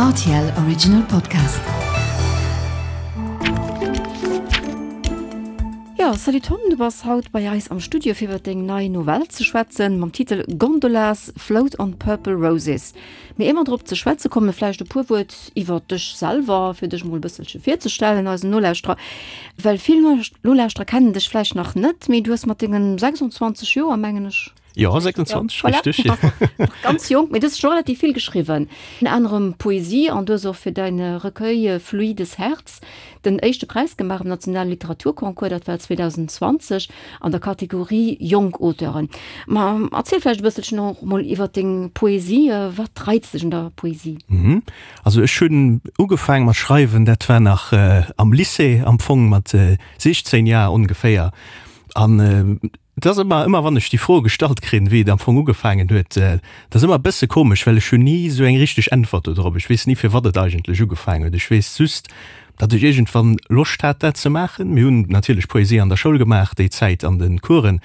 Rtl Original Podcast. Jo, salut Tom, du bass haut bei eis am Studio fir iwwer deng nei Novell ze schwätzen mam Titel Gondolas Float on Purple Roses. Mee ier mer drop ze schwätze kommen, vläicht e puer Wuert iwwer dech selwer, fir dech mol e bësselche virzestellen eisen Nolauschterer. Well vill Nolauschterer kennen dech vläicht nach net, mee du hues mat dengen 26 Joer, mengen ech, Jo, 26, ja, richtig. Voilà. Ganz jonk, mee du hues scho relativ vill geschriwwen. Ënner anerem Poesie an du hues och fir däin Recueil Fluides Herz den éischte Präis gemaach am nationale Literaturconcours, dat war 2020 an der Kategorie Jonk Auteuren. Ma erziel vläicht e bësselchen och mol iwwer deng Poesie. Wat reizt dech un der Poesie? Also ech hunn ugefaang mat schreiwen, dat war nach am Lycée am Fong, mat 16 Jar ongeféier. An Et ass ëmmer, ëmmer wann ech déi Fro gestallt kréien, wéi et am Fong ugefaangen huet, dat ass ëmmer e bësse komesch, well ech hunn ni esou eng richteg Äntwert do drop. Ech weess ni, firwat et eigentlech ugefaangen huet. Ech weess just, datt ech iergendwann Loscht hat, dat ze maachen. Mir hunn natierlech Poesie an der Schoul gemaach déi Zäit an de Coursen,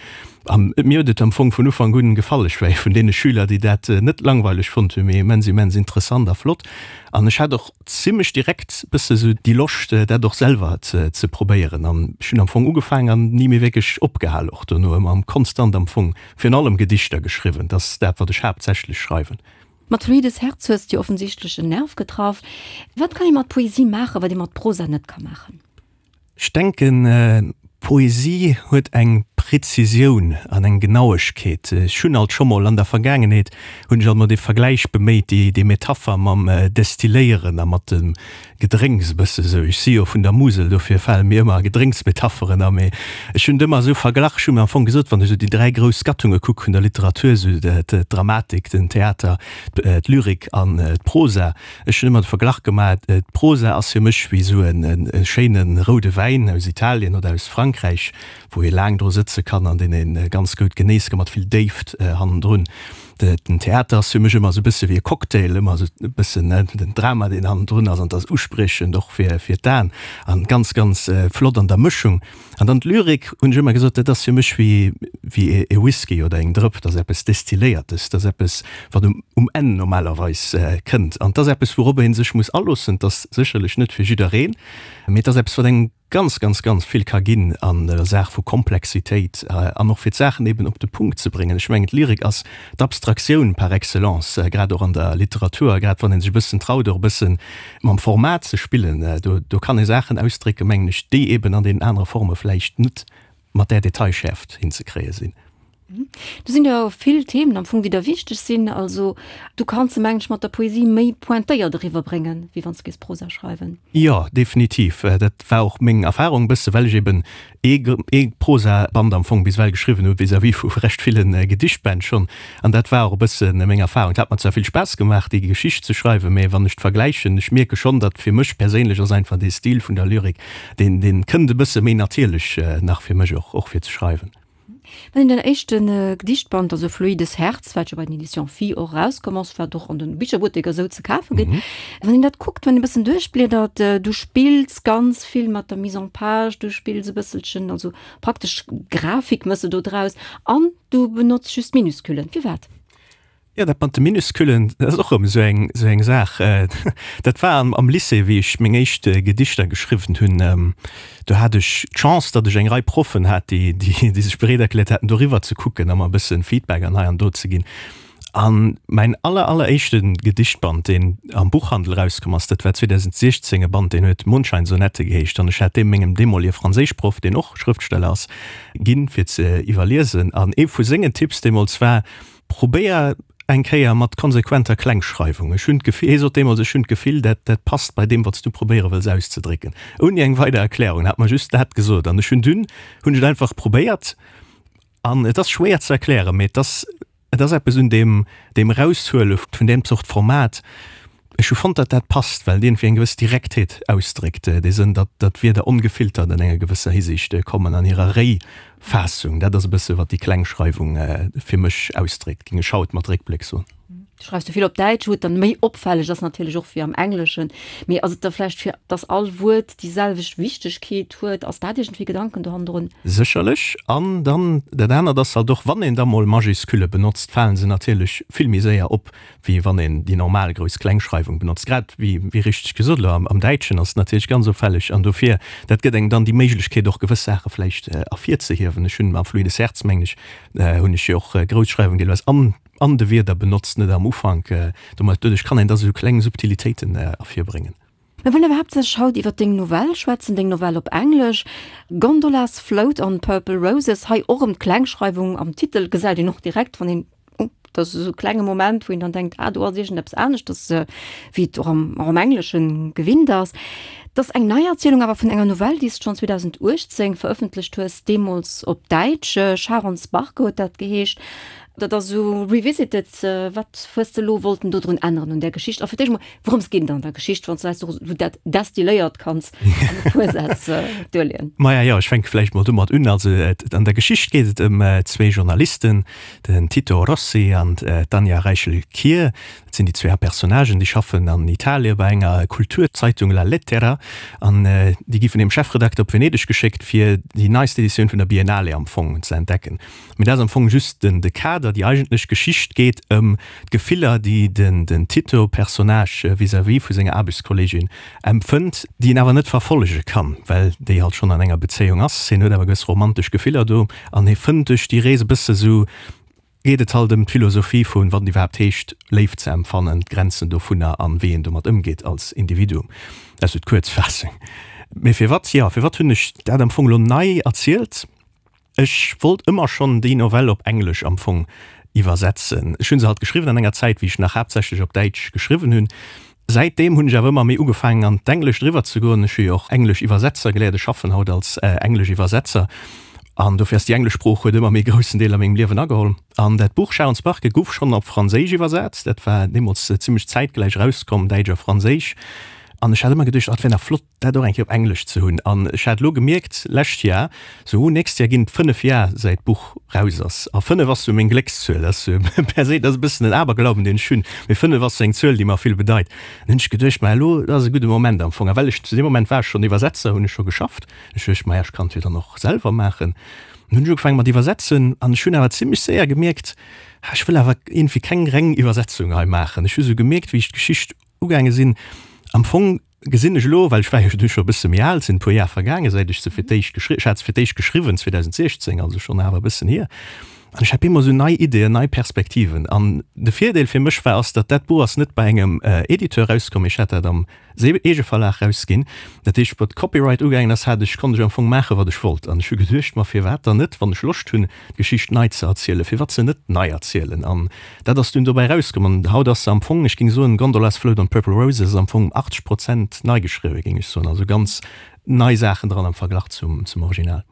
a mir huet et am Fong vun Ufank un gefall. Ech war ee vun deene Schüler, déi dat net langweileg fonnt hunn, mee immens, immens interessant a flott. An ech hat och zimlech direkt bësse sou déi Loscht dat och selwer ze probéieren an ech hunn am Fong ugefaang an ni méi wierklech opgehal, och dono ëmmer konstant am Fong virun allem Gedichter geschriwwen, dat ass dat wat ech haaptsächlech schreiwen. Mat Fluides Herz hues de offensichtlech en Nerv getraff. Wat kann ee mat Poesie maachen, wat ee mat Prosa net ka maachen? Ech denken, Poesie huet eng Präzisioun an eng Genauegkeet. Ech hunn alt scho mol an der Vergaangenheet hunn ech alt mol dee Vergläich beméit, déi déi Metapher mam Destilléieren a mat dem Gedrénks e bësse sou. Ech si jo vun der Musel, dofir fale mir ëmmer Gedrénksmetapheren a. Mee ech hunn et ëmmer esou verglach, ech hu mir am Fong gesot, wann ech esou déi 3 grouss Gattunge kuck vun der Literatur, esou d'Dramatik, den Theater, d'Lyrik an d'Prosa, Ech hunn ëmmer de Verglach gemaach, d'Prosa ass fir mech wéi esou e schéine roude Wäin aus Italien oder aus Frankräich, wou ee laang dru sëtze kann an deen ee ganz goud genéisse kann, mat vill Déift hannendrun. Den Theater ass fir mech ëmmer esou e bësse wéi e Cocktail, ëmmer esou e bëssen den Drama, deen hannendrun ass an 't ass uspriechend och fir d'Aen an ganz, ganz flott an der Mëschung. An dann d'Lyrik, hunn ech ëmmer gesot, dat ass fir mech wéi wéi e Whisky oder eng Drëpp, dat ass eppes Destilléiertes, dat ass eppes, wat um um Enn normalerweis kënnt. An 't ass eppes, wourop ee sech muss aloossen. 't ass sécherlech net fir jiddereen, mee 't ass eppes, wat engem ganz, ganz, ganz vill ka ginn an der Saach vu Komplexitéit an och fir d'Saachen eben op de Punkt ze bréngen. Ech mengen, d'Lyrik ass d'Abstraktioun par excellence, grad och an der Literatur, a grad wann ee sech e bëssen traut, och e bëssen Mam Format ze spillen, do do kann ee Saachen ausdrécken, mengen ech, déi eben an deenen anere Forme vläicht net mat där Detailschäerft hinzekréie sinn. Do sinn jo vill Themen am Fong, déi der wichteg sinn. Also du kanns se, mengen ech, mat der Poesie méi pointéiert eriwwerbréngen, wéi wann s de géifs Prosa schreiwen. Jo, definitiv. Dat war och meng Erfahrung e bësse, well ech eben ee Prosaband am Fong bis ewell geschriwwen hu vis-à-vis vu recht ville Gedichtbänn schonn. An dat war och e bësse meng Erfahrung. Et hat mer zwar vill Spaass gemaach, déi Geschicht ze schreiwen, mä wann ech d'vergläichen, ech mierke schonn, datt fir mech perséinlech ass einfach dee Stil vun der Lyrik, deen, deen kënnt e bësse méi natierlech nach fir mech och, och fir ze schreiwen. Wann een den éischte Gedichtband, also Fluides Herz, wat jo bei den Editions Phi och erauskomm ass, wat och an de Bicherbutteker esou ze kafe gëtt, wann een dat kuckt, wann een e bëssen duerchbliedert, du spills ganz vill mat der Mise en page, du spills e bësselchen, also praktesch Grafik méchs de do draus an du benotz just Minusculen. Firwat? Jo, dat mat de Minusculen, dat ass och erëm esou eng, esou eng Saach. Dat war am, am Lycée, wéi ech meng éischt Gedichter geschriwwen hunn. Do hat ech d'Chance, datt ech eng Rei Proffen hat, déi, déi, déi sech bereet erkläert haten, doriwwer ze kucken a mer e bësse Feedback an hei an do ze ginn. An mäin aller, alleréischte Gedichtband, deen am Buchhandel erauskomm ass, dat war 2016, e Band, deen huet Mondscheinsonette geheescht. An ech hat dee mengem deemolige Franséischproff, deen och Schrëftsteller ass, ginn, fir ze iwwerliesen. An ee vu sengen Tipps deemools war, Probéier eng Kéier mat konsequenter Klengschreiwung. Ech hunn d'Gefill, hie sot deemools, ech hunn d'Gefill, dat, dat passt bei deem, wat s du probéiere wëlls auszedrécken. Ouni eng weider Erklärung. En hat mer just dat gesot. An ech hunn dunn, hunn ech et einfach probéiert. An et ass schwéier ze erklären, mee et ass, et ass eppes un deem, deem Eraushuele vun deem Zort Format, Ech hu fonnt, datt dat passt, well et iergendwéi eng gewëss Direktheet ausdréckt, dee Sënn, datt datt d'Wierder ongefiltert an enger gewësser Hisiicht kommen an hirer Réifassung. Dat ass e bësse wat déi Klengschreiwung fir mech ausdréckt, géing ech haut mat Réckbléck soen. Du schreifs jo vill op Däitsch, wou et dann méi opfälleg ass natierlech och wéi am Engleschen. Mee ass et da vläicht fir dass all Wuert déi selwecht Wichtegkeet huet? Ass dat iergendwéi Gedanken do hannendrun? Sécherlech. An dann dat anert ass halt och, wann een da mol Majuscule benotzt, falen se natierlech vill méi séier op, wéi wann een déi normal Grouss-Kleng-Schreiwung benotzt. Grad wéi, wéi richteg gesot elo, am Däitschen ass et natierlech ganz opfälleg. An dofir, dat gëtt engem dann déi Méiglechkeet och gewëss Saache vläicht ervirzehiewen. Ech hunn am Fluides Herz, mengen ech, hunn ech jo och Grousschreiwung deelweis an An de Wierder benotzt, net am Ufank. Domat, doduerch kann een da sou kleng Subtilitéiten ervirbréngen. Mir wëllen awer haaptsächlech haut iwwer deng Novell schwätzen, deng Novell op Englesch, Gondolas Float on Purple Roses. Hei och erëm d'Klengschreiwung am Titel gesäit een och direkt, wann een, oh, dat ass esou e klenge Moment, wou een dann denkt, ah, do ass iergendeppes aneschters, wéi et och am, och am Englesche gewinnt ass. Et ass eng Neierzielung awer vun enger Novell, déi s de schonn 2018 verëffentlecht hues, deemools op Däitsch, Charons Barke huet dat geheescht. Dat ass esou revisited. Wat hues de elo wollten dodrun änneren un där Geschicht? A fir d'éischt emol, wourëms geet et an der Geschicht, wann s de eis esou dat destilléiert kanns an e puer Sätz duerleeën? Maja, jo, ech fänke vläicht mol domat un. Also an der Geschicht geet et ëm zwee Journalisten, den Tito Rossi an d'Anja Reichel-Kier. Dat sinn déi zwee Haaptpersonnagen. Déi schaffen an Italie bei enger Kulturzeitung La Lettera an déi gi vun hirem Chefredakter op Venedeg geschéckt, fir déi neist Editioun vun der Biennale am Fong ze entdecken. Mee dat ass am Fong just den de Kader. Déi eigentlech Geschicht geet ëm d'Gefiller, déi den den Tito-Personnage vis-à-vis vu senger Aarbechtskolleegin empfënnt, déi en awer net verfollege kann, well déi halt schonn an enger Bezéiung ass. Hien huet awer gewëss romantesch Gefiller do an hie fënnt duerch déi Rees e bësse sou, geet et halt ëm d'Philosophie vun, wat et iwwerhaapt heescht, Léift ze empfannen, d'Grenzen dovunner an wéi een domat ëmgeet als Individuum. Dat ass sou d'Kuerzfaassung. Mee firwat, jo, firwat hunn ech dat am Fong elo nei erzielt? Ech wollt ëmmer schonn déi Novell op Englesch am Fong iwwersetzen. Ech hunn se halt geschriwwen an enger Zäit, wéi ech nach haaptsächlech op Däitsch geschriwwen hunn. Säitdeem hunn ech awer ëmmer méi ugefaangen an d'Englescht eriwwer ze goen. Ech hu jo och englesch Iwwersetzer geléiert, ech schaffen haut als englesch Iwwersetzer an dofir ass déi englesch Sprooch huet ëmmer méi groussen Deel a mengem Liewen ageholl. An dat Buch Sharons Barke guff schonn op Franséisch iwwersat. Dat war deemools zimmlech zäitgläich erauskomm, Däitsch a Franséisch. An ech hat ëmmer geduecht, oh, dat wär nach flott, dat och eng Kéier op Englesch ze hunn. An ech hat elo gemierkt, lescht Jar, sou, nächst Jar ginn et 5 Jar säit d'Buch raus ass. A 5 ass sou meng Gléckszuel. Dat ass sou per se, dat ass e bëssen en Aberglauben, deen ech hunn, mee 5 ass sou eng Zuel, déi mer vill bedeit. An hunn ech geduecht, ma elo, dat ass e gudde Moment am Fong. A well ech zu deem Moment war ech schonn Iwwersetzer, hunn ech scho geschafft. Ech duecht, maja, ech kann et jo dann och selwer maachen. An hunn ech ugefaange mat iwwersetzen an ech hunn awer zimmlech séier gemierkt, ha, ech wëll awer iergendwéi keng reng Iwwersetzung hei maachen. Ech hu sou gemierkt, wéi ech d'Geschicht ugaange sinn, am Fong gesinn ech elo, well ech war jo du scho e bësse méi al, sinn e puer Jar vergaange säit ech se fir d'éischt geschri, ech hat se fir d'éischt geschriwwen 2016, also schonn awer e bëssen hier, an ech hat bemol esou nei Ideeën, nei Perspektiven. An de Virdeel fir mech war, ass, datt dat Buch ass net bei engem Editeur rauskomm, ech hat dat am Eegeverlag rausginn. Dat heescht, wat Copyright ugaangen ass, hat ech, konnt ech am Fong maachen, wat ech wollt. An ech hu geduecht, ma firwat dann net, wann ech Loscht hunn, d'Geschicht nei ze erzielen, firwat se net nei erzielen? An dat ass dunn dobäi erauskomm. An haut ass se am Fong, ech géing soen, Gondolas Float on Purple Roses ass am Fong 80 Prozent nei geschriwwen, géing ech soen. Also ganz nei Saachen dran am Verglach zum, zum Original.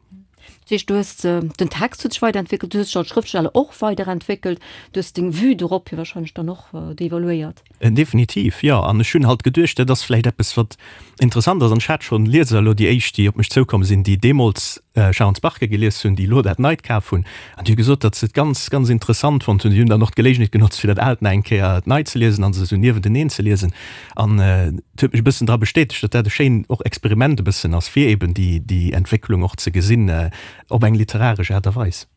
Dat heescht, du hues, den Text huet sech weiderentwéckelt, du hues dech als Schrëftsteller och weiderentwéckelt, du hues deng Vue dorop jo wahrscheinlech dann och devaluéiert. Definitiv, jo. An ech hunn halt geduecht, dat ass vläicht eppes, wat interessant ass. An ech hat schonn Lieser elo, déi éischt, déi op mech zoukomm sinn, déi deemools Sharons Barke gelies hunn, déi elo dat Neit kaf hunn, an déi hu gesot, datt se et ganz, ganz interessant fonnt hunn. Déi hunn dann och d'Geléigenheet genotzt, fir dat Aalt nach eng Kéier nei ze liesen a se esou niewenteneen ze liesen. An et huet mech e bëssen dra bestätegt, datt dat e schéin och Experiment e bëssen ass, fir eben déi, déi Entwécklung och ze gesinn op eng literaresch Aart a Weis.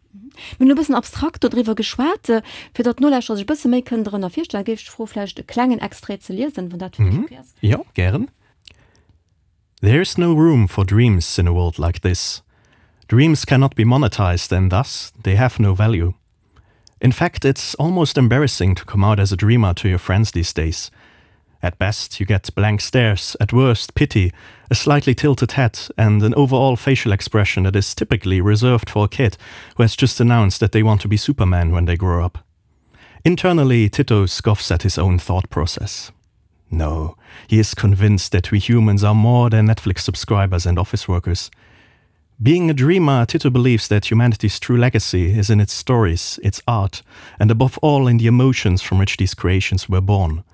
Mir hunn elo e bëssen abstrakt dodriwwer geschwat. Fir datt d'Nolauschterer sech e bësse méi kënnen dorënner virstellen, géif ech dech froen, vläicht e klengen Extrait ze liesen, wann dat fir dech ok ass. Jo, gären. There is no room for dreams in a world like this. Dreams cannot be monetized and thus they have no value. In fact, it's almost embarrassing to come out as a dreamer to your friends these days. At best, you get blank stares, at worst, pity, a slightly tilted head, and an overall facial expression that is typically reserved for a kid who has just announced that they want to be Superman when they grow up. Internally, Tito scoffs at his own thought process. No, he is convinced that we humans are more than Netflix subscribers and office workers. Being a dreamer, Tito believes that humanity's true legacy is in its stories, its art, and above all in the emotions from which these creations were born.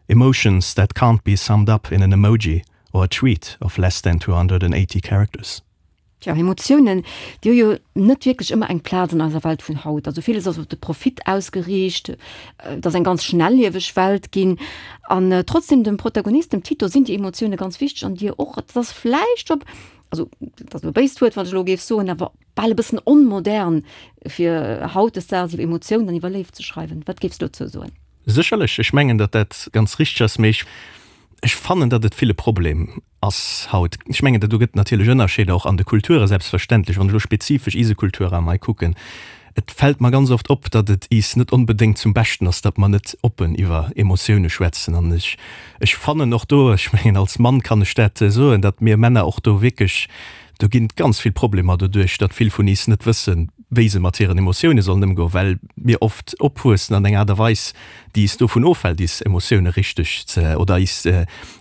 Emotions that can't be summed up in an emoji or a tweet of less than 280 characters. Tja, Emotiounen, déi hu jo net wierklech ëmmer eng Plaz an eiser Welt vun haut. Also villes ass op de Profit ausgeriicht, et ass eng ganz schnellieweg Welt ginn. An trotzdem, dem Protagonist, dem Tito, sinn déi Emotioune ganz wichteg an dir och. Et ass vläicht op, also dat ass elo e béist Wuert, wat ech elo géif soen, awer bal e bëssen onmodern, fir hautdesdaags iwwer Emotiounen an iwwer Léift ze schreiwen. Wat géifs du dozou soen? Sécherlech, ech mengen, datt dat ganz richteg ass, mee ech fannen, datt et vill e Problem ass haut. Ech mengen, do gëtt natierlech Ënnerscheeder och an de Kulture selbstverständlech. Wann ech elo spezifesch ise Kulturraum hei kucken, et fält mer ganz oft op, datt et is net onbedéngt zum Beschten ass, datt mer net oppen iwwer Emotioune schwätzen. An ech, ech fannen och do, ech mengen als Mann kann ech dat soen, datt mir Männer och do wierklech, do ginn et ganz vill Problemer doduerch, datt vill vun is net wëssen, wéi se mat hiren Emotioune sollen ëmgoen, well mir oft opwuessen an enger Aart a Weis, déi is dovun ofhält, is Emotioune richteg ze, oder is,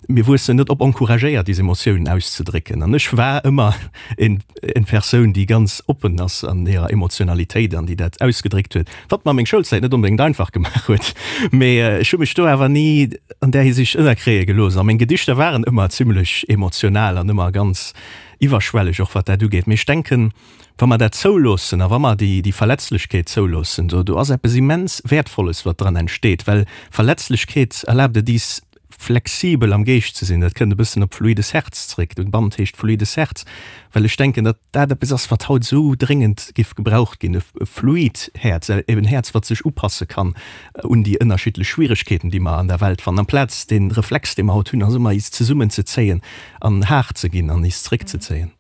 mir wuessen net op, encouragéiert, is Emotiounen auszedrécken. An ech war ëmmer en, en Persoun, déi ganz oppen ass an hirer Emotionalitéit an déi dat ausgedréckt huet, wat mer meng Schoulzäit net onbedéngt einfach gemaach huet. Mee ech hu mech do awer ni an där Hisiicht ënnerkréie gelooss. A meng Gedichter waren ëmmer zimlech emotional an ëmmer ganz iwwerschwelleg och wat dat ugeet. Mee ech denken, Wa mer dat zouloossen a wa mer déi, déi Verletzlechkeet zouloossen, do, do ass eppes immens Wäertvolles, wat dran entsteet, well Verletzlechkeet erlaabt et is, flexibel am Geescht ze sinn. Dat kënnt e bëssen op fluides Herz zréck. De Band heescht Fluides Herz, well ech denken, datt dat eppes ass, wat haut esou dréngend géif gebraucht ginn, e fluid Häerz, eben en Häerz, wat sech upasse kann un déi ënnerschiddlech Schwieregkeeten, déi mer an der Welt fannen, amplaz dee Reflex, dee mer haut hunn, ass ëmmer is zesummenzezéien an haart ze ginn an is zréckzezéien.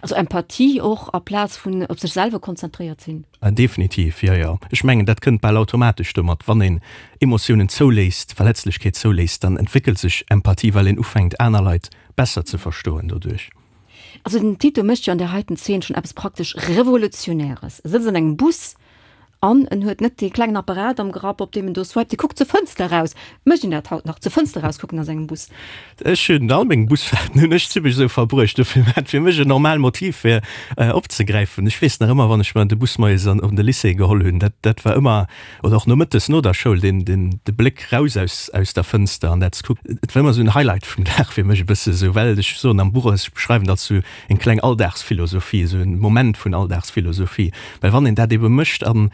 Also Empathie och aplaz vun op sech selwer konzentréiert sinn. Definitiv, jo, jo. Ech mengen, dat kënnt bal automatesch domat. Wann een Emotiounen zouléisst, Verletzlechkeet zouléisst, dann entwéckelt sech Empathie, well een ufänkt, aner Leit besser ze verstoen doduerch. Also den Tito mécht jo an där heiten Zeen schonn eppes praktesch Revolutionäres. E sëtzt an engem Bus An en huet net dee klengen Apparat am Grapp, op deem en do swiped. Dee kuckt zur Fënster eraus. Mécht een dat haut nach, zur Fënster eraus kucken a sengem Bus? Ech hunn all meng Busfaarten hunn ech zimmlech esou verbruecht. Dofir war et fir mech en normal Motiv fir opzegräifen. Ech weess nach ëmmer, wann ech mer de Bus moies an op de Lycée geholl hunn, dat dat war ëmmer, oder och nomëttes no der Schoul, deen deen de Bléck raus aus aus der Fënster an dat ze kucken, et war ëmmer esou en Highlight vum Dag fir mech e bësse esou, well ech soen am Buch, ech beschreiwen dat esou eng kleng Alldagsphilosophie, esou en Moment vun Alldagsphilosophie, well wann een dat ebe mécht an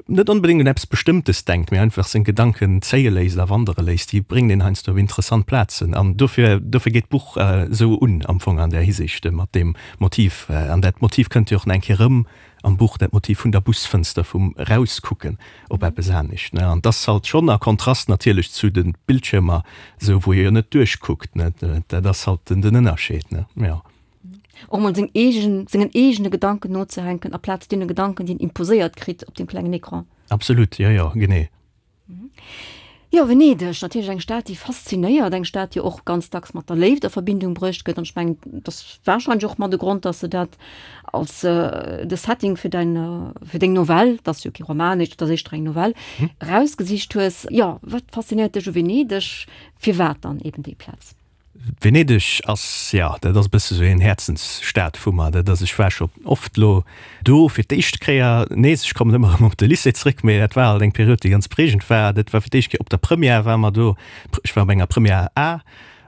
net onbedéngt un eppes Bestëmmtes denkt, mee einfach seng Gedanken zéie léisst a wandere léisst, déi bréngt een heiansdo op interessant Plazen an dofir, dofir geet d'Buch esou un am Fong an där Hisiicht mat deem Motiv. An dat Motiv kënnt jo och nach eng Kéier erëm am Buch, dat Motiv vun der Busfënster, vum Erauskucken op eppes anescht, ne. An 't ass halt schonn a Kontrast natierlech zu de Bildschiermer, esou wou ee jo net duerchkuckt, ne. Dat ass halt den Ënnerscheed, ne, jo. Och mol seng eegen, sengen eegene Gedanken nozehänken, aplaz deene Gedanken, déi een imposéiert kritt op deem klengen Ecran. Absolut, jo, jo, genee. Jo, Venedeg, natierlech eng Stad, déi faszinéiert, eng Stad, déi och ganz dacks mat der Léift a Verbindung bruecht gëtt. An ech mengen, et ass warscheinlech och mat e Grond, dass de dat als de Setting fir däin, fir deng Novell, et ass jo kee Roman, et ass éischter eng Novell, erausgesicht hues. Jo, wat faszinéiert dech u Venedeg? Firwat dann eben déi Plaz? Venedeg ass, jo, dat ass e bësse sou een Häerzensstad vu mer. Dat ass, ech war scho oft lo do fir d'éischt Kéier nees, ech kommen ëmmer erëm op de Lycée zréck, mee dat war alt eng Period, déi ganz prägend war. Dat war fir d'éischt Kéier op der Première ware mer do, ech war op enger Première A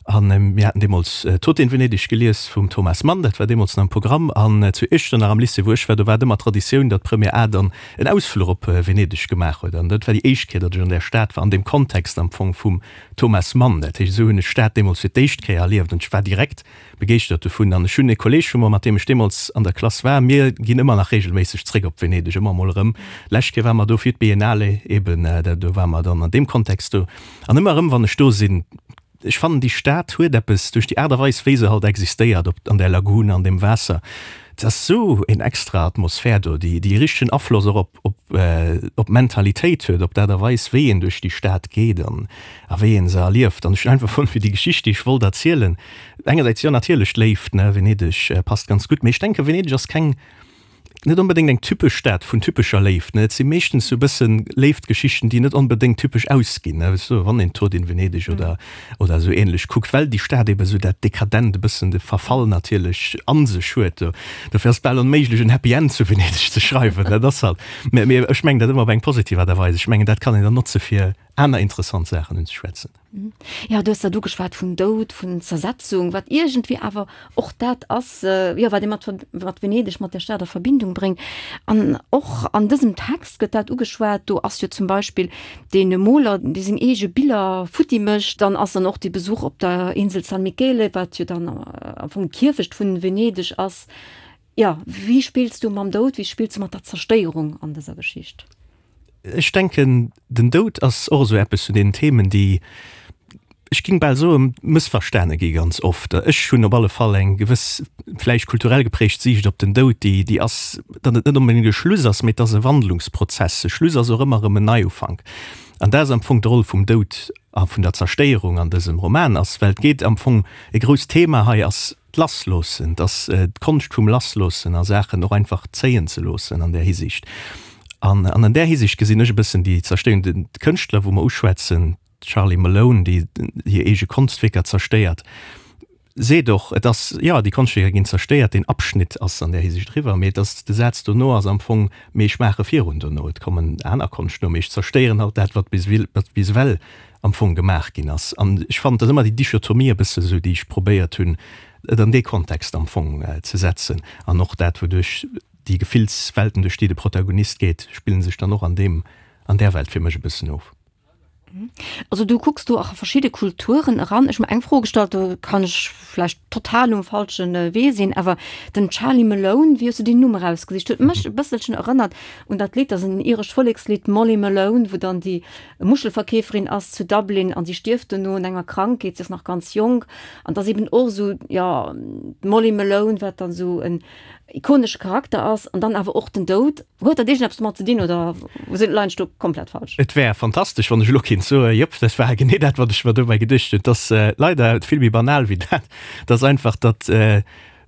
an mir haten deemools Tod in Venedig gelies vum Thomas Mann, dat war deemools nach am Programm. An zu Iechternach am Lycée, wou ech war, do war et ëmmer Traditioun, datt d'Première A dann en Ausfluch op Venedeg gemaach huet. An dat war déi éischt Kéier, datt ech an där Stad war, an deem Kontext am Fong vum Thomas Mann, Dat heescht, esou hunn ech d'Stad deemools fir d'éischt Kéier erlieft an ech war direkt begeeschtert dovun. An ech hunn e Kolleeg vu mer, mat deem ech deemools an der Klass war, mir ginn ëmmer nach reegelméisseg zréck op Venedeg, ëmmer emol erëm. Lescht Kéier ware mer do fir d'Biennale eben, do ware mer dann an deem Kontext do. An ëmmer erëm, wann ech do sinn, ech fannen déi Stad huet eppes duerch déi Aart a Weis, wéi se halt existéiert op an där Lagune, an deem Waasser, et ass esou en extra Atmosphär do, déi déi richtegen Afloss och op op op d'Mentalitéit huet, op d'Aart a Weis, wéi een duerch déi Stad geet an a wéi een se erlieft. An ech hunn einfach fonnt, fir déi Geschicht, déi ech wollt erzielen, engersäits jo natierlech d'Léift, ne, Venedeg passt ganz gutt, mee ech denken, Venedeg ass keng, net onbedéngt eng typesch Stad vun typescher Léift, ne. Et si meeschtens sou e bëssen Léiftgeschichten, déi net onbedéngt typesch ausginn, ne, weess du, wann een Tod in Venedig oder oder esou ähnlech kuckt, well déi Stad eben esou dat Dekadent, e bëssen de Verfall natierlech a sech huet. Dofir ass et bal onméiglech en Happy End zu Venedeg ze schreiwen, dat ass halt, mä ech mengen dat ëmmer op eng positiv Aart a Weis. Ech mengen dat kann een dann notze fir. aner interessant Saachen unzeschwätzen. Jo, du hues dat ugeschwat vum Doud, vun Zersetzung, wat iergendwéi awer och dat ass, jo, wat ee mat, mat Venedeg, mat där Stad a Verbindung bréngt. An och an dësem Text gëtt dat ugeschwat. Do ass jo zum Beispill dee Moler, dee seng eege Biller futti mécht. Dann ass dann och dee Besuch op der Insel San Michele, wat jo dann am Fong d'Kierfecht vun Venedeg ass. Jo, wéi spills du mam Doud, wéi spills du mat der Zerstéierung an dëser Geschicht? Ech denken, den Doud ass och esou eppes vun deenen Themen, déi, ech géing bal soen, mëssverstane gi ganz oft. Ech hunn op alle Fall eng gewëss, vläicht kulturell geprägt Siicht op den Doud, déi, déi ass, datt et net onbedéngt e Schluss ass, mee et ass e Wandlungsprozess. E Schluss ass och ëmmer erëm en Neiufank. An dat ass am Fong d'Roll vum Doud a vun der Zerstéierung an dësem Roman ass, well et geet am Fong, e grousst Thema hei ass d'Lassloossen, dass d'Konscht vum Lassloossen a Saachen och einfach zéien ze loossen an där Hisiicht. An an där Hisiicht gesinn ech e bëssen déi Zerstéierung. Den Kënschtler, wou mer uschwätzen, d'Charlie Malone, déi hir eege Konschtwierker zerstéiert, seet och, et ass, jo, déi Konschtwierker ginn zerstéiert, deen Abschnitt ass an där Hisiicht eriwwer, mee et ass, de Saz dono ass am Fong, mee ech maache virun dono, et kommen aner Konscht no, mee ech zerstéieren halt dat, wat bis ewell am Fong gemaach ginn ass. An ech fannen, et ass ëmmer déi Dichotomie e bësse sou, déi ech probéiert hunn, et an dee Kontext am Fong ze setzen. An och dat, wouduerch déi Gefillswelten, duerch déi de Protagonist geet, spillen sech dann och an deem, an där Welt fir mech e bëssen of. Also du kucks do och a verschidde Kulturen eran. Ech hu mer eng Fro gestallt, do kann ech vläicht total um falsche Wee sinn, awer den Charlie Malone, wéi hues du deen Numm erausgesicht? Huet mech e bësselchen erënnert un dat Lidd, dat ass en irescht Vollekslidd, Molly Malone, wou dann déi Muschelverkeeferin ass zu Dublin an si stierft dono un enger Krankheet, si ass nach ganz jonk an et ass eben och esou, jo, d'Molly Malone, wat dann esou en ikonesche Charakter ass an dann awer och den Doud. Huet dat iergendeppes domat ze dinn oder sinn leien ech do komplett falsch? Et wär fantastesch, wann ech elo kéint soen, jop, dat war genee dat, wat ech mer dobäi geduecht hunn. Et ass leider vill méi banal wéi dat. Et ass einfach, datt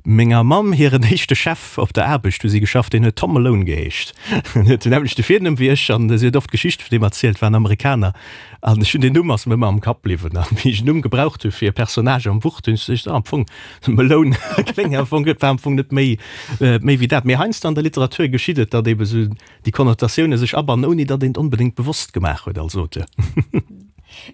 Menger Mamm hiren éischte Chef op der Aarbecht, wou si geschafft, deen huet Tom Malone geheescht. En huet den nämmlechte Virnumm wéi ech an si huet oft Geschichte vun deem erzielt, war en Amerikaner. An ech hunn deen Numm ass mir ëmmer am Kapp bliwwen. An wéi ech en Numm gebraucht hu fir e Personnage am Buch, hunn ech geduecht, ah, am Fong, Malone kléngt am Fong gutt, war am Fong net méi, méi wéi dat. Mee heiansdo an der Literatur geschitt et, datt eebe sou déi Konnotatioune sech abannen, ouni datt een et onbedéngt bewosst gemaach huet als Auteur.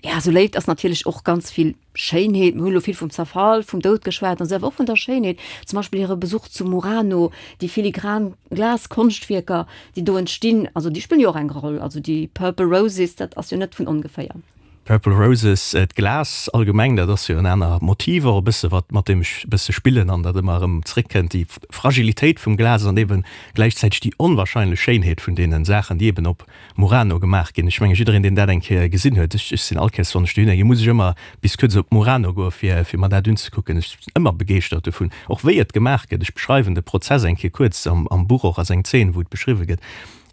Ja, sou Léift ass natierlech och ganz vill Schéinheet, mir hunn elo vill vum Zerfall, vum Doud geschwat an esou, awer och vun der Schéinheet, zum Beispill hire Besuch zu Murano, déi filigran Glaskonschtwierker, déi do entstinn, also déi spillen jo och eng Roll, also déi Purple Roses, dat ass jo net vun ongeféier. Purple Roses, d'Glas allgemeng, dat ass jo en aner Motiv och e bësse, wat, mat deem ech e bësse spillen an dat ëmmer erëm zréckkënnt, déi Fragilitéit vum Glas an eeben gläichzäiteg déi onwahrscheinlech Schéinheet vun deene Saachen, déi eeben op Murano gemaach ginn. Ech menge jiddereen deen dat eng Kéier gesinn huet, ech sinn all Kéiers wann ech dohinner ginn, muss ech ëmmer bis kuerz op Murano goe fir fir mer dat unzekucken. Ech sinn ëmmer begeeschtert dovun, och wéi et gemaach gëtt. Ech beschreiwen de Prozess eng Kéier kuerz am am Buch och ass eng Zeen wou et beschriwwe gëtt.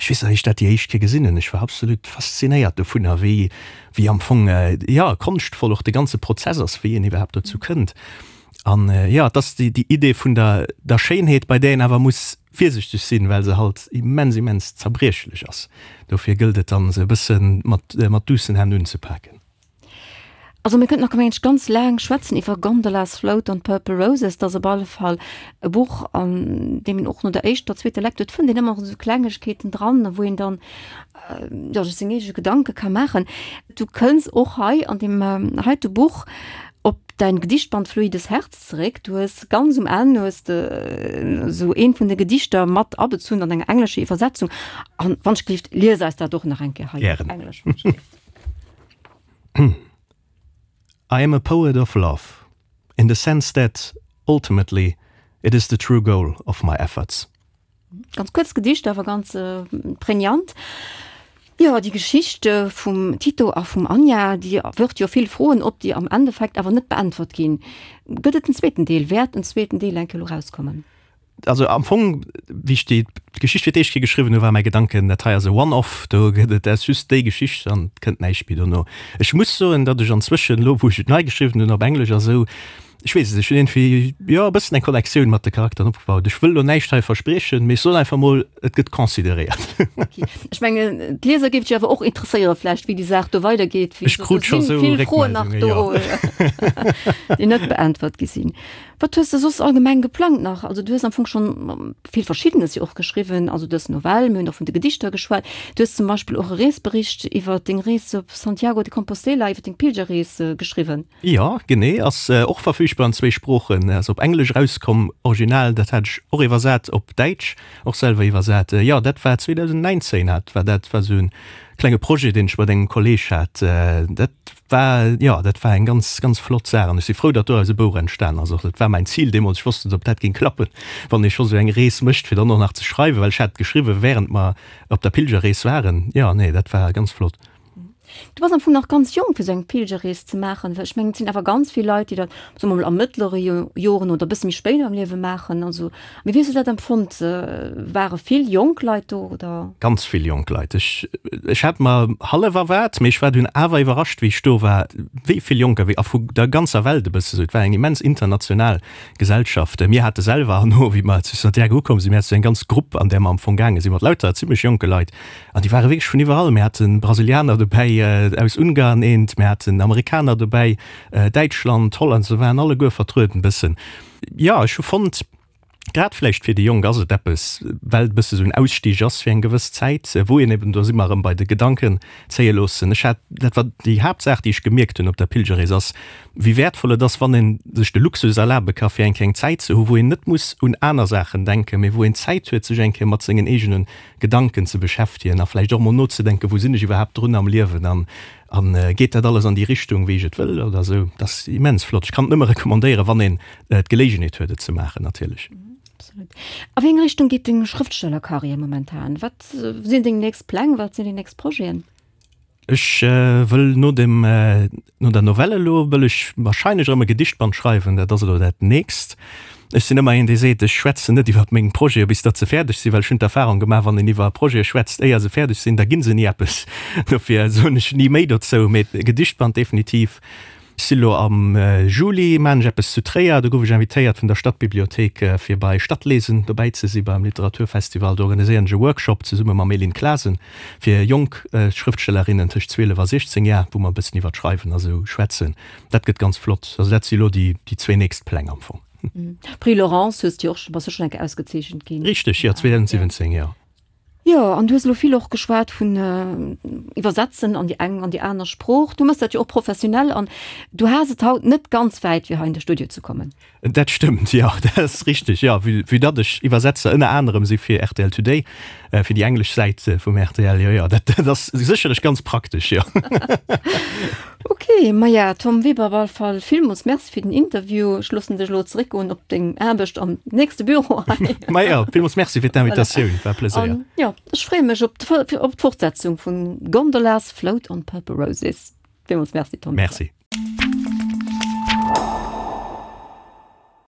Ech weess nach wéi ech dat déi éischt Kéier gesinn hunn, ech war absolut faszinéiert dovunner wéi wéi am Fong jo konschtvoll och de ganze Prozess ass, wéi een iwwerhaapt dozou kënnt. An jo, et ass déi déi Idee vun der der Schéinheet, bei där een awer muss virsichteg sinn, well se halt immens, immens zerbriechlech ass. Dofir gëllt et dann, se e bësse mat, mat duussen Hänn unzepaken. Also mir kënnten nach, mengen ech, ganz laang schwätzen iwwer Gondolas Float an Purple Roses. Dat ass op alle Fall e Buch, an deem een och no der éischter, zweeter Lecture, et fënnt een ëmmer esou Klengegkeeten dran, wou een dann, jo, sech seng eege Gedanke ka maachen. Du kënns och hei an deem heite Buch op däin Gedichtband Fluides Herz zeréck. Du hues ganz um Enn hues de esou eent vun de Gedichter mat abezunn an enger englescher Iwwersetzung. An wann ech gelift, lies eis dat och nach eng Kéier hei op Englesch, wann ech gelift. I am a poet of love, in the sense that, ultimately, it is the true goal of my efforts. Ganz kuerz Gedicht, awer ganz prägnant. Jo, déi Geschicht vum Tito a vum Anja, déi wërft jo vill Froen op, déi am Endeffekt awer net beäntwert ginn. Gëtt et en zweeten Deel? Wäert en zweeten Deel eng Kéier elo rauskommen? Also am Fong, wéi ech déi Geschicht fir d'éischt Kéier geschriwwen hunn, war mäi Gedanken, dat hei ass e One-off, do gëtt et, dat ass just déi Geschicht an et kënnt näischt méi dono. Ech muss soen, datt ech anzwëschen, elo wou ech et nei geschriwwen hunn op Englesch a sou, Ech weess et, ech hunn iergendwéi, jo, e bëssen eng Connectioun mat de Charakteren opgebaut. Ech wëll elo näischt hei verspriechen, mee ech soen einfach mol, et gëtt consideréiert. Ok. Ech mengen, d'Lieser géif et jo awer och interesséieren vläicht, wéi déi Saach do weidergeet. Ech krut scho sou Vill Froen nach do, déi net beäntwert gi sinn. Wat hues de soss allgemeng geplangt nach? Also du hues am Fong schonn vill Verschiddenes jo och geschriwwen, also dës Novell, mir hunn och vun de Gedichter geschwat. Du hues zum Beispill och e Reesbericht iwwer deng Rees op Santiago de Compostela, iwwer deng Pilgerrees geschriwwen. Jo, genee, ass och verfügbar an zwéi Sproochen, ass op Englesch erauskomm, Original, dat hat ech och iwwersat op Däitsch, och selwer iwwersat. Jo, dat war 2019 hat war dat, war esou en klenge Projet, deen ech mat engem Kolleeg hat. Dat war, jo, dat war eng ganz, ganz flott Saach an ech si frou, datt doraus e Bouch entstan ass. Och dat war mäin Zil deemools, ech wosst net, ob dat géing klappen, wann ee scho sou eng Rees mécht, fir dann och nach ze schreiwen, well ech hat geschriwwen, wärend mer op der Pilgerrees waren. Jo, nee, dat war ganz flott. Du bass am Fong nach ganz jonk fir sou eng Pilgerrees ze maachen, well ech mengen et sinn awer ganz vill Leit, déi dat, soe mer mol, a mëttlere Joren oder e bësse méi spéit am Liewe maachen. Also, mee wéi hues du dat empfonnt? Ware vill jonk Leit do oder? Ganz vill jonk Leit. Ech, ech hat mer hallef erwaart, mee ech war dunn awer iwwerrascht, wéi ech do war, wéi vill Jonker, wéi a vu der ganzer Welt e bësse sou. Et war eng immens international Gesellschaft. Mir hate selwer herno, wéi mer zu Santiago ukomm sinn, mir hate sou eng ganz Grupp, an där mer am Fong gaange sinn, mat lauter zimmlech jonke Leit, An déi ware wierklech vun iwwerall. Mir hate Brasilianer dobäi, aus Ungarn eent, mir haten Amerikaner dobäi, Däitschland, Holland, se waren alleguer vertrueden bëssen. Jo, ech hu fonnt, grad vläicht fir déi Jonk ass et eppes, well et e bësse sou en Ausstieg ass fir eng gewëss Zäit, wou een eben, do si mer erëm bei de Gedanken zéie loossen. Ech hat, dat war déi Haaptsaach, déi ech gemierkt hunn op der Pilgerrees, ass, wéi wäertvoll et ass, wann ee sech de Luxus erlabe ka fir eng Kéier eng Zäit ze hu wou een net muss un aner Saachen denken, mee wou een Zäit huet, sech eng Kéier mat sengen eegene Gedanken ze beschäftegen a vläicht och mol nozedenken, wou sinn ech iwwerhaapt drun am Liewen an an geet dat alles an déi Richtung, wéi ech et wëll oder esou. Dat ass immens flott. Ech kann et nëmme recommandéieren, wann een d'Geléigenheet huet, et ze maachen natierlech. Absolut. A wéi eng Richtung geet deng Schrëftstellerkarriär momentan? Wat sinn deng nächst Pläng? Wat sinn deng nächst Projeten? Ech wëll no dem, no der Novelle elo wëll ech wahrscheinlech erëm e Gedichtband schreiwen, dat ass elo dat nächst. Ech sinn ëmmer een, dee seet, ech schwätzen net iwwer meng Projete bis datt se fäerdeg sinn, well ech hunn d'Erfahrung gemaach, wann een iwwer Projete schwätzt éier se fäerdeg sinn, da gi se ni eppes. Dofir soen ech ni méi dozou, mee e Gedichtband definitiv. Ech si lo am Juli, maan ech eppes zu Tréier, do gouf ech invitéiert vun der Stadtbibliothék fir bei Stadtlesen dobäi ze si beim Literaturfestival. Do organiséieren ech e Workshop zesumme mam Elin Klasen fir jonk Schrëftstellerinnen tëscht 12 a 16 Jar, wou mer e bëssen iwwer d'Schreiwen a sou schwätzen. Dat gëtt ganz flott. Also dat si lo déi zwéi nächst Pläng am Fong. Prix Laurence hues de jo och, bass du schonn eng Kéier ausgezeechent ginn. Richteg, jo, 2017, jo. Jo, an du hues elo vill och geschwat vun Iwwersetzen an déi eng an déi aner Sprooch. Du mëss dat jo och professionell an du has et haut net ganz wäit, fir hei an de Studio ze kommen. Dat stëmmt, jo, dat ass richteg, jo. Vue, vue datt ech Iwwersetzer ënner anerem si fir rtl Today, fir déi englesch Säit vum rtl, jo, jo, dat, dat ass sécherlech ganz praktesch, jo. Ok, maja Tom Weber, op all Fall villmools Merci fir den Interview. Ech loossen dech elo zeréckgoen op deng Aarbecht am nächste Büro hei. Maja, villmools Merci fir d'Invitatioun, war e Pleséier. An jo, ech freeë mech op op d'Fortsetzung vun Gondolas Float on Purple Roses. Villmools Merci Tom Weber. Merci.